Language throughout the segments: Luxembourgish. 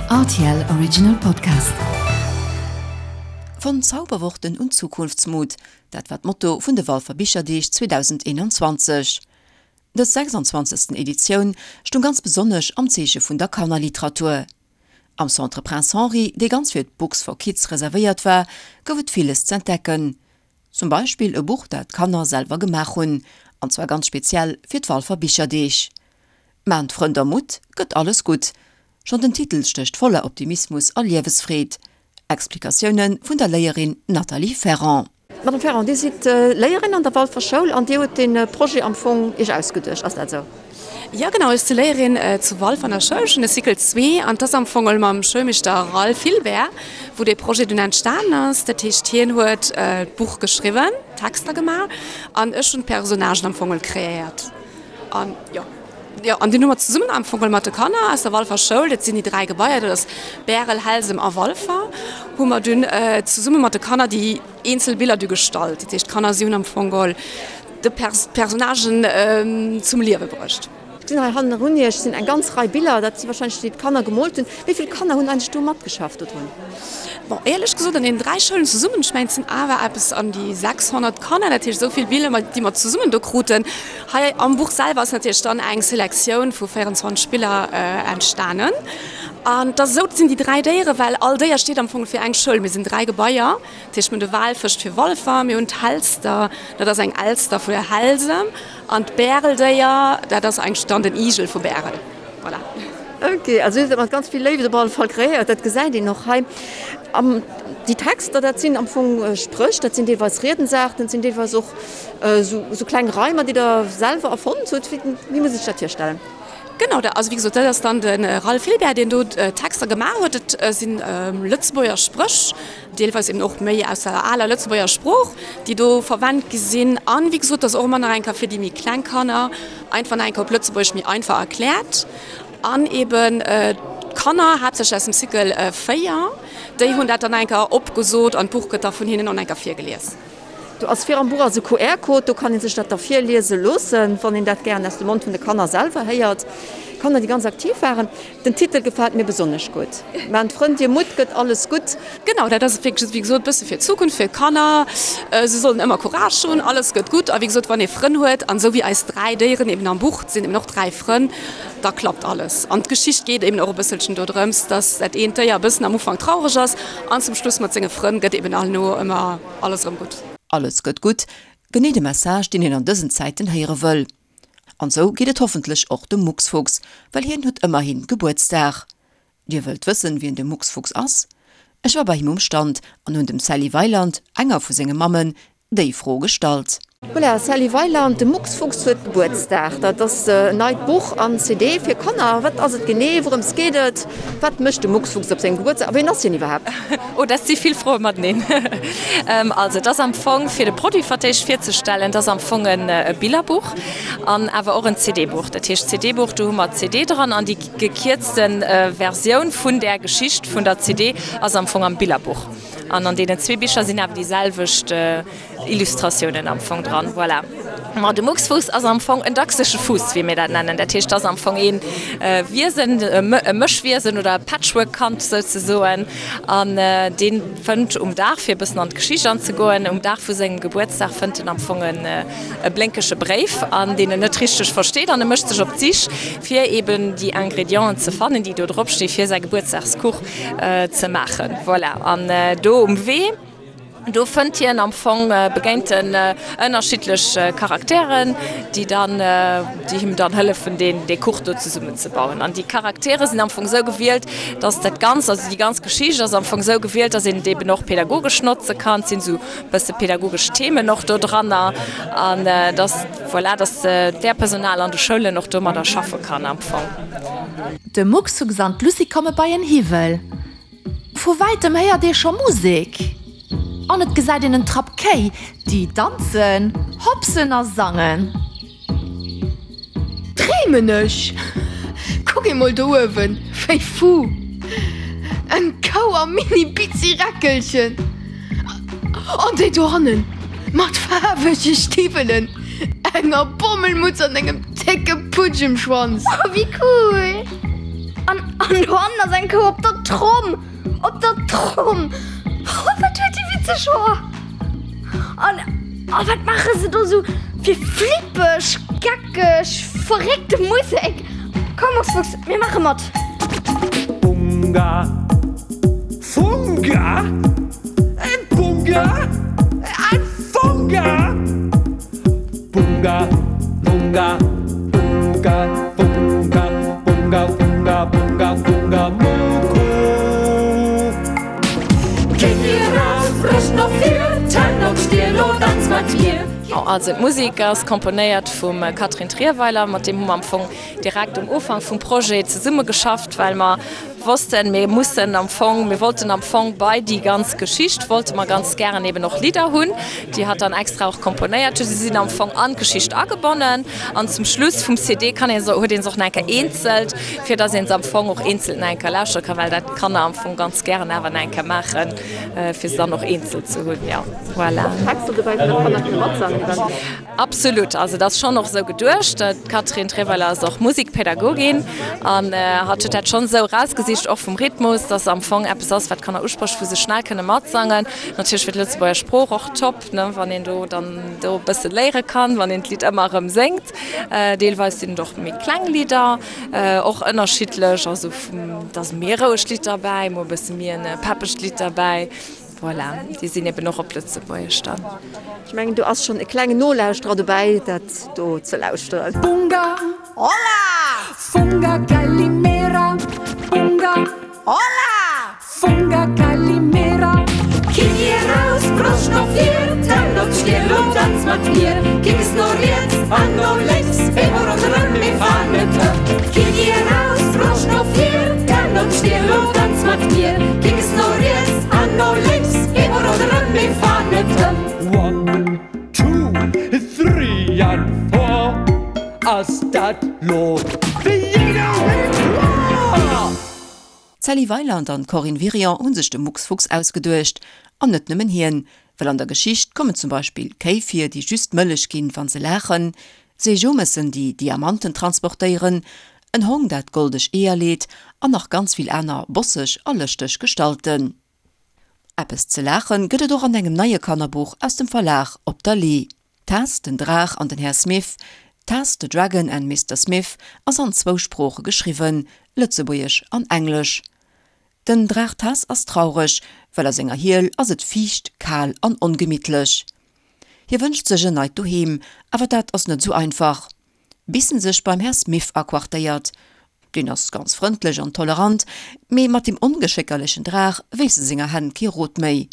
Rtl Original Podcast. Von Zauberworten und Zukunftsmut, dat war d'Motto vun de Walfer Bicherdeeg 2021. Dës 26. Editioun stoung ganz besonnesch am Zeeche vun der Kannerliteratur. Am Centre Prince Henri, dee ganz fir d'Books for Kids reservéiert war, gouf et villes z'entdecken. Zum Beispill e Buch, dat d'Kanner selwer gemaach hunn, an zwar ganz speziell fir d'Walfer Bicherdeeg. Maan d'Frënn der Mutt, gëtt alles gutt. Schonn den Titel stécht voller Optimismus a Liewesfreed. Explikatioune vun der Léierin Nathalie Ferrand. Madame Ferrand, Dir sidd Léierin an der Walfer Schoul an Dir hutt dee Projet am Fong Iech ausgeduecht, ass dat esou? Jo genau, ech si Léierin zu Walfer an der Schoul, ech hunn de Cycle zwee an et ass am Fong mam Schoulmeeschter Ralph Hilbert, wou dee Projet dunn entstanen ass. Dat heescht hien huet d'Buch geschriwwen, d'Texter gemaach an ech hunn d'Personnagen am Fong kreéiert. An jo, jo, an dunn hu mer zesummen am Fong mat de Kanner aus der Walfer Schoul, dat sinn déi 3 Gebaier, dat ass Bärel, Helsem a Walfer, hu mer dunn zesumme mat de Kanner déi eenzel Biller du gestallt. Dat heescht, d'Kanner, si hunn am Fong geholl de d'Personnagen zum Liewe bruecht. Ech gesinn hei hannerun Iech sinn eng ganz Rei Biller, dat si wahrscheinlech déi d'Kanner gemoolt hunn. Wéi vill Kanner hunn eigentlech do matgeschafft dodrun? Bon, éierlech gesot, an deenen 3 Schoulen zesummen, ech mengen, et sinn awer eppes an déi 600 Kanner, dat heescht esou vill Biller, déi mer zesummen do kruten. Hei am Buch selwer ass natierlech dann eng Selektioun vu 24 Biller entstanen. An et ass esou, et sinn déi 3 Déieren, well all Déier steet am Fong fir eng Schoul. Mir sinn 3 Gebaier, dat heescht mir hunn de Walfësch fir Walfer, mir hunn d'Helster, dat ass eng Elster vu Helsem, an d'Bäreldéier, dat ass eigentlech dann den Igel vu Bärel. Voilà. Ok, also huet et mat ganz vill Léift op alle Fall kreéiert, dat gesäit een och hei. An déi Texter, dat sinn am Fong Spréch, dat sinn deelweis Riedensaarten, dat sinn deelweis och esou kleng Reimer, déi Der selwer erfonnt hutt. Wéi muss ee sech dat virstellen? Genau, also wéi gesot, dat ass dann de Ralph Hilbert, deen do d'Texter gemaach huet. Dat si Lëtzebuerger Spréch, deelweis eben och méi aus der aler Lëtzebuerger Sprooch, déi do verwennt gi sinn. An wéi gesot, dat ass och ëmmer nach eng Kéier fir déi méi kleng Kanner einfach nach eng Kéier op Lëtzebuergesch méi einfach erkläert. An eben d'Kanner, haaptsächlech aus dem Cycle 4, déi hunn dat dann eng Kéier opgesot an d'Buch gëtt da vun hinnen och nach eng Kéier virgelies. Do ass vir am Buch ass e QR-Code, do kann ee sech dat da virliese loossen, wann een dat gären aus dem Mond vun de Kanner selwer héiert. Kanner, déi ganz aktiv waren. Den Titel gefält mir besonnesch gutt, Maan d'Frënn dir Mutt, gëtt alles gutt. Genau, dat ass et wierklech, wéi gesot, e bësse fir d'Zukunft, fir d'Kanner. Se sollen ëmmer Courage hunn, alles gëtt gutt. A wéi gesot, wann ee Frënn huet, an esou wéi eis 3 Déieren eben am Buch, et sinn eben och 3 Frënn, da klappt alles. An d'Geschicht geet eben och e bësselchen dodrëms, dass dat eent Déier e bëssen am Ufank traureg ass an zum Schluss mat senge Frënn gëtt eben herno ëmmer alles erëm gutt. Alles gëtt gutt, genee de Message, deen een an dësen Zäiten héiere wëll. An sou geet et hoffentlech och dem Mucksfuchs, well hien huet ëmmerhin Gebuertsdag. Dir wëllt wëssen, wien de Mucksfuchs ass? Ech war bei him um Stand an hunn dem Sally Weiland, enger vu senge Mammen, déi Fro gestallt. Voilà, Sally Weiland, de Mucksfuchs huet Gebuertsdag. Dat ass en neit Buch an CD fir Kanner. Wat ass et genee? Wourëms geet et? Wat mécht de Mucksfuchs op sengem Gebuertsdag a wien ass hien iwwerhaapt? Oh, dat si vill Froe mateneen. Also et ass am Fong, fir de Produit fir d'éischt virzestellen, et ass am Fong e Billerbuch an awer och en CD-Buch. Dat heescht CD-Buch, do hu mer d'CD dran an déi gekierzte Versioun vun där Geschicht vun der CD ass am Fong am Billerbuch. An an deenen zwee Bicher sinn awer déi selwecht Illustratiounen am Fong dran. Voilà. Ma de Mucksfuuss ass am Fong en dachsege Fuuss, wéi mir dat nennen. Dat heescht, et ass am Fong ee Wiesen, e Mëschwiesen oder e Patchwork-Kand souzesoen. An dee fënnt um Dag, fir e bëssen an d'Geschicht anzegoen, um Dag vu sengem Gebuertsdag fënnt en am Fong e blénkege Bréif, an deen en net richteg versteet. An e mécht sech op d'Sich, fir eeben déi Ingredienten ze fannen, déi do drop sti fir säi Gebuertsdagskuch ze maachen. Voilà. An do um Wee. Do fënnt hien am Fong, begéint en ënnerschiddlech Charakteren, déi dann, déi him dann hëllefen deen dee Kuch do zesummen ze bauen. An déi Charaktere sinn am Fong esou gewielt, dass dat Ganzt, also déi ganz Geschicht ass am Fong esou gewielt, dass een et eben och pädagogesch notze kann. Et sinn esou bësse pädagogesch Themen och do dranner an dass, voilà, dass d'Léierpersonal an de Schoulen och domadder schaffe kann am Fong. De Mucksfuchs an d'Lucie komme bei en Hiwwel. Vu wäitem héiert ee scho Musek an et gesäit een en Trapp Kéi, déi danzen, hopsen a sangen. Dreemen ech? Kuck emol do uewen, wéi fu! Eng Kou am Mini-Bitzi-Räckelchen! An déi dohannen mat faarwege Stiwwelen, enger Bommelmutz an engem décke Putsch um Schwanz! Oh, wéi cool! An, an dohannen ass eng Kou op der Tromm! Op der Tromm! Oh, wat huet déi witzeg Hoer! An, oh, wat maache se do sou fir flippeg, geckeg, verréckte Musek? Komm, Mucksfuchs, mir maache mat! Bunga, Funga, en Bunga, en Funga! Bunga, Bunga, Bunga, Bunga, Bunga, Bunga, Bunga, Bunga, Muku. Knie raus, Broscht no vir, Zänn op d'Stier, lo danz mat mir. Also d'Musek ass komponéiert vum Catherine Trierweiler, mat deem hu mer am Fong direkt um Ufank vum Projet zesummegeschafft, well mer wossten, mir mussen am Fong, mir wollten am Fong bei déi ganz Geschicht wollte mer ganz gären eben och Lidder hunn, déi hatt dann extra och komponéiert huet. Si sinn am Fong an d'Geschicht agebonnen an zum Schluss vum CD kann ee se, huet ee se och nach eng Kéier eenzelt, fir dass ee se am Fong och eenzelt nach eng Kéier lauschtere kann, well dat d'Kanner am Fong ganz gären awer nach eng Kéier maachen, fir se dann och eenzelt ze hunn. Jo, voilà. Texter dobäi, wou d'Kanner kënne matsangen eventuell. Absolut, also et ass schonn och esou geduecht. D'Catherine Treweiler ass och Musikpädagogin an hatt huet dat schonn esou erausgesicht, och vum Rhythmus, dass am Fong eppes ass, wat d'Kanner usprécht, wou se schnell kënne matsangen. Natierlech fir d'Lëtzebuerger Sprooch och top, ne, wann een do dann do e bësse léiere kann, wann een d'Lidd ëmmer erëm séngt. Deelweis sinn et och méi kleng Lidder, och ënnerschiddlech, also et ass méi e rouegt Lidd derbäi, mol e bësse méi e peppegt Lidd derbäi. Voilà, déi sinn eben och op Lëtzebuergesch dann. Ech mengen, do ass schonn e klengen Nolauschterer dobäi, dat do ze lauschteren. Bunga, Hola! Funga Calimera, Bunga, Hola! Funga Calimera. Knie raus, Broscht no vir, Zänn op d'Stier, lo danz mat mir. Kicks no riets an no lénks, Eemol ronderëm, mir fahren net ëm. Knie raus, Broscht no vir, Zänn op d'Stier, lo danz mat mir. Kicks no riets an no lénks, eemol ronderëm, mir fahren net ëm. One, two, three and four, ass dat lo wéi jiddereen kloer? D'Sally Weiland an d'Corinne Wirion hu sech de Mucksfuchs ausgeduecht. An net nëmmen hien, well an der Geschicht kommen zum Beispill Kéi vir, déi just Mëllech ginn, wa se laachen, Seejomessen, déi Diamanten transportéieren, en Hong, dat goldeg Eeër leet an nach ganz vill aner bosseg a lëschteg Gestalten. Eppes ze laachen gëtt et och an engem neie Kannerbuch aus dem Verlag Op der Lee. Tess, den Draach an den Här Smith, Tess, the Dragon and Mister Smith, ass an zwou Sprooche geschriwwen, Lëtzebuergesch an Englesch. Den Draach Tess ass traureg, well a senger Hiel ass et fiicht, kal an ongemittlech. Hie wënscht sech en neit Doheem, awer dat ass net esou einfach, bis en sech beim Här Smith aquartéiert. Deen ass ganz frëndlech an tolerant, mee mat deem ongeschéckerlechen Draach weess e senger Hänn kee Rot méi.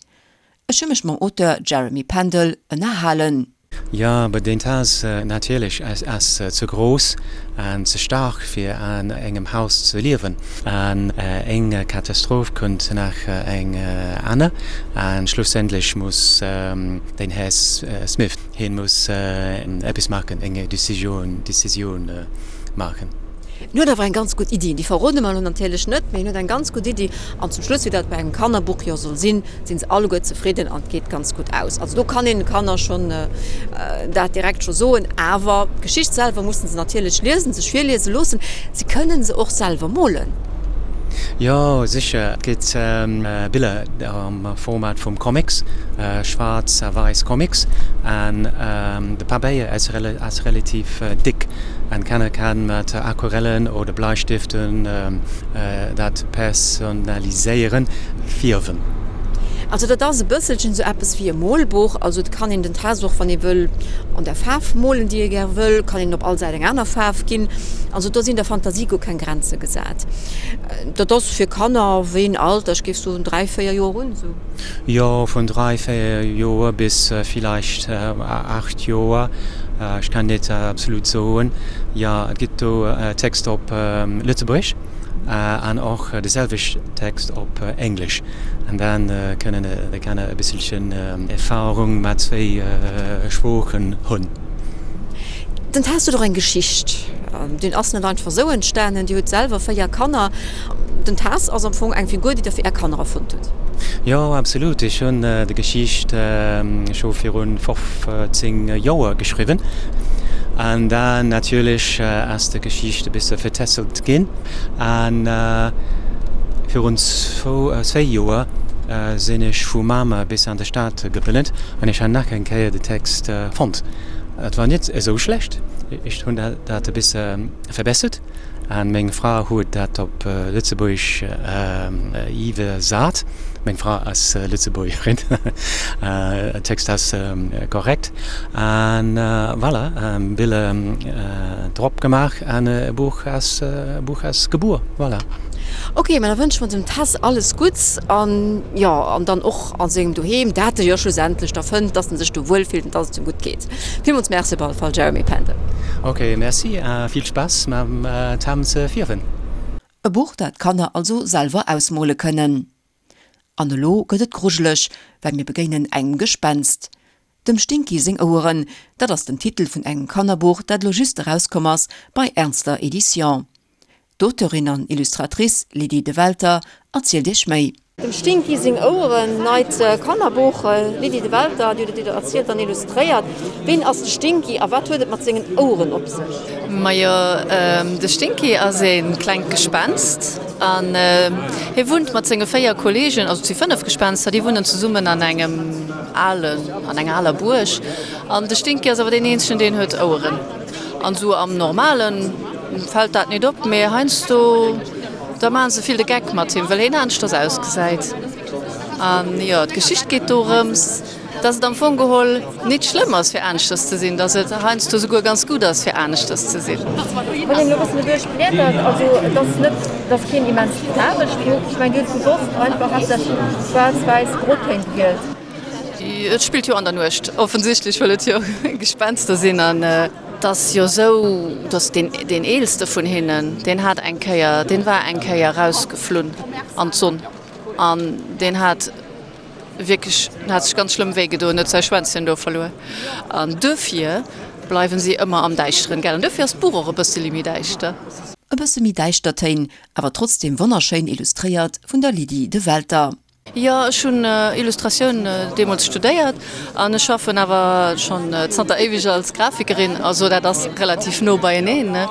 Ech hu mech mam Auteur Jeremy Pendel ënnerhalen. Jo, aber den Taz natierlech ass ze grouss an ze staark fir an engem Haus ze liewen. An eng Katastroph kënnt nach eng aner an schlussendlech muss den Här Smith, hien muss eppes maachen, eng Decisioun maachen. En huet awer eng ganz gutt Iddi, déi verrode mer elo natierlech net, mee en huet eng ganz gutt Iddi an zum Schluss, wéi dat bei engem Kannerbuch jo soll sinn, sinn se alleguer zefridden an et geet ganz gutt aus. Also do kann een de Kanner schonn dat direkt scho soen. Awer d'Geschicht selwer mussen se natierlech liesen, sech virliese loossen. Se kënnen se och selwer molen. Jo, sécher. Et gëtt Biller am Format vum Comics, schwaarz a wäiss Comics. An de Pabeier ass relativ dick an d'Kanner kann mat Aquarellen oder Bleistiften dat personaliséieren. Fierwen. Also dat ass e bësselchen esou eppes wéi e Molbuch. Also et kann een den Test och, wann ee wëll, an der Faarf molen, déi ee gär wëll, kann een op all Säit eng aner Faarf ginn. Also do sinn der Fantasie guer keng Grenze gesat. Dat ass fir Kanner, wéi een Alter? Ech géif soen 3, 4 Joer un esou. Jo, vun 3, 4 Joer bis villäicht 8 Joer. Ech kann net absolut soen. Jo, et gëtt do Text op Lëtzebuergesch. An och de selwecht Text op Englesch. An dann kënnen de Kanner e bësselchen Erfahrung mat zwéi Sproochen hunn. Den Test huet och eng Geschicht. Deen ass net einfach esou entstanen. Dir hutt selwer 4 Kanner. Den Tess ass am Fong eng Figur, déi Der fir Är Kanner erfonnt hutt. Jo, absolut. Ech hunn déi Geschicht scho virun 15 Joer geschriwwen. An dann natierlech ass de Geschicht e bësse vertässelt ginn. An virun zwéi Joer sinn ech vu Mamer bis an de Stad gepënnelt an ech han nach eng Kéier de Text fonnt. Et war net esou schlecht, ech hunn dat e bësse verbessert an meng Fra huet dat op Lëtzebuergesch iwwersat. Meng Fra ass Lëtzebuergerin, Text ass korrekt. An voilà, Biller drop gemaach an e Buch ass Buch ass gebuer, voilà. Ok, ma da wënsche mer dem Tess alles Gutts an jo, an dann och a sengem Doheem, dat e jo schlussendlech da fënnt, dass en sech do wuel fillt an dass et him gutt geet. Villmools Merci op alle Fall, Jeremy Pendel. Ok, Merci a vill Spaass mam Tam ze fierwen. E Buch, dat d'Kanner also selwer ausmole kënnen. An elo gëtt et grujeleg, well mir begéinen engem Gespenst. Dem Stinky seng Oueren, dat ass den Titel vun engem Kannerbuch, dat elo just erauskomm ass bei Ernster Edition. D'Auteurin an Illustratrice Lydie Develter erzielt iech méi. Dem Stinky seng Oueren, neit Kannerbuch, Lydie Develter, Dir hutt et erzielt an illustréiert. Ween ass de Stinky a wat huet et mat sengen Oueren op sech? Majo, de Stinky ass ee klengt Gespenst an hie wunnt mat senge 4 Kolleegen, also et si 5 Gespenster, déi wunnen zesummen an engem alen, an enger aler Buerg. An de Stinky ass awer deen eenzegen, deen huet Oueren. An esou am Normale fält dat nit op, mee heiansdo da maache se vill de Geck mat him, well hien aneschters ausgesäit. An jo, d'Geschicht geet dorëms, dass et am Fong geholl nit schlëmm ass fir aneschters ze sinn, dass et heiansdo souguer ganz gutt ass fir aneschters ze sinn. Wann een elo e bëssen doduerch bliedert, also et ass net, et ass keen immens faarwegt Buch, ech mengen Dir hutt bewosst einfach haaptsächlech schwaarz-wäiss Grotéin gewielt. Et spillt jo an der Nuecht, offensichtlech, well et jo Gespenster sinn. An et ass jo esou, dass deen deen eelste vun hinnen, deen hat eng Kéier, deen war eng Kéier rausgeflunn an d'Sonn an deen hat Wierklech, en hat sech ganz schlëmm wéi gedoen, huet säi Schwänzchen do verluer. An duerfir bleiwen si ëmmer am Däischteren, gell? An duerfir ass d'Buch och e bësseli méi däischter. E bësse méi däischter Téin, awer trotzdem wonnerschéin illustréiert vun der Lydie Develter. Jo, ech hunn Illustratioun deemools studéiert an ech schaffen awer schonn zanter éiweg als Grafikerin, also dat ass relativ no beieneen, ne?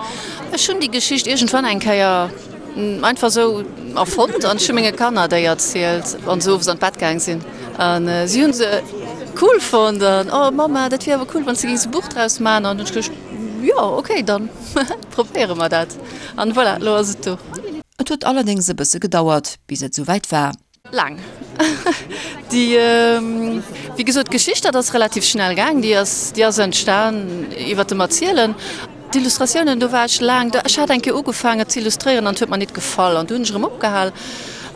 Ech hunn déi Geschicht iergendwann eng Kéier Einfach sou erfonnt an ech hu menge Kanner déi erzielt wann se owes an d'Bett gaang sinn an si hunn se cool fonnt an oh Mamma dat wier awer cool wann s de géings e Buch draus man an hunn ech geduecht jo ok dann probéiere mer dat an voilà lo ass et do. Et huet allerdéngs e bësse gedauert bis et souwäit war. Laang. Déi, wéi gesot, d'Geschicht, dat ass relativ schnell gaang, déi ass, déi ass entstan iwwert dem Erzielen. D'Illustratiounen, do war ech laang, ech hat eng Kéier ugefaangen ze illustréieren an et huet mer nit gefall an du hunn ech erëm opgehal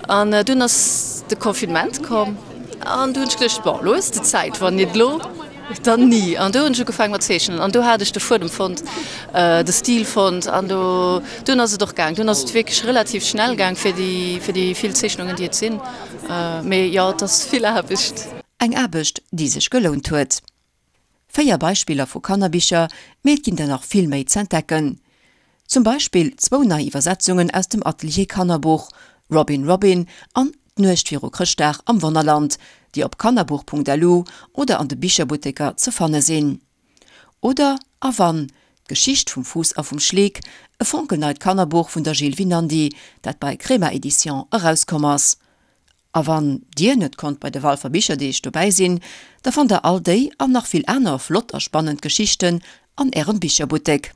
an dunn ass de Confinement komm an du hunn ech geduecht, bon, elo hues de Zäit, wann nit elo, Dann ni. An do hunn ech ugefaangen mat zeechnen an do hat ech de Fuedem fonnt, de Stil fonnt an do dunn ass et och gaang. Dunn ass et wierklech relativ schnell gaang fir déi fir déi vill Zeechnungen déi et sinn. Mee jo, et ass vill Aarbecht. Eng Aarbecht déi sech gelount huet. 4 Beispiller vu Kannerbicher, mee et ginn der nach vill méi z'entdecken. Zum Beispill zwou nei Iwwersetzungen aus dem Atelier Kannerbuch, Robin Robin an D'Nuecht viru Chrëschtdag am Wonnerland, déi op kannerbuch.lu oder an de Bicherbutteker ze fanne sinn. Oder A wann, d'Geschicht vum Fuuss a vum Schleek, e fonkelneit Kannerbuch vun der Jill Winandy, dat bei Crema Edition erauskomm ass. A wann Dir net konnt bei de Walfer Bicherdeeg dobäi sinn, da fannt der all déi an nach vill aner flott a spannend Geschichten an Ärem Bicherbuttek.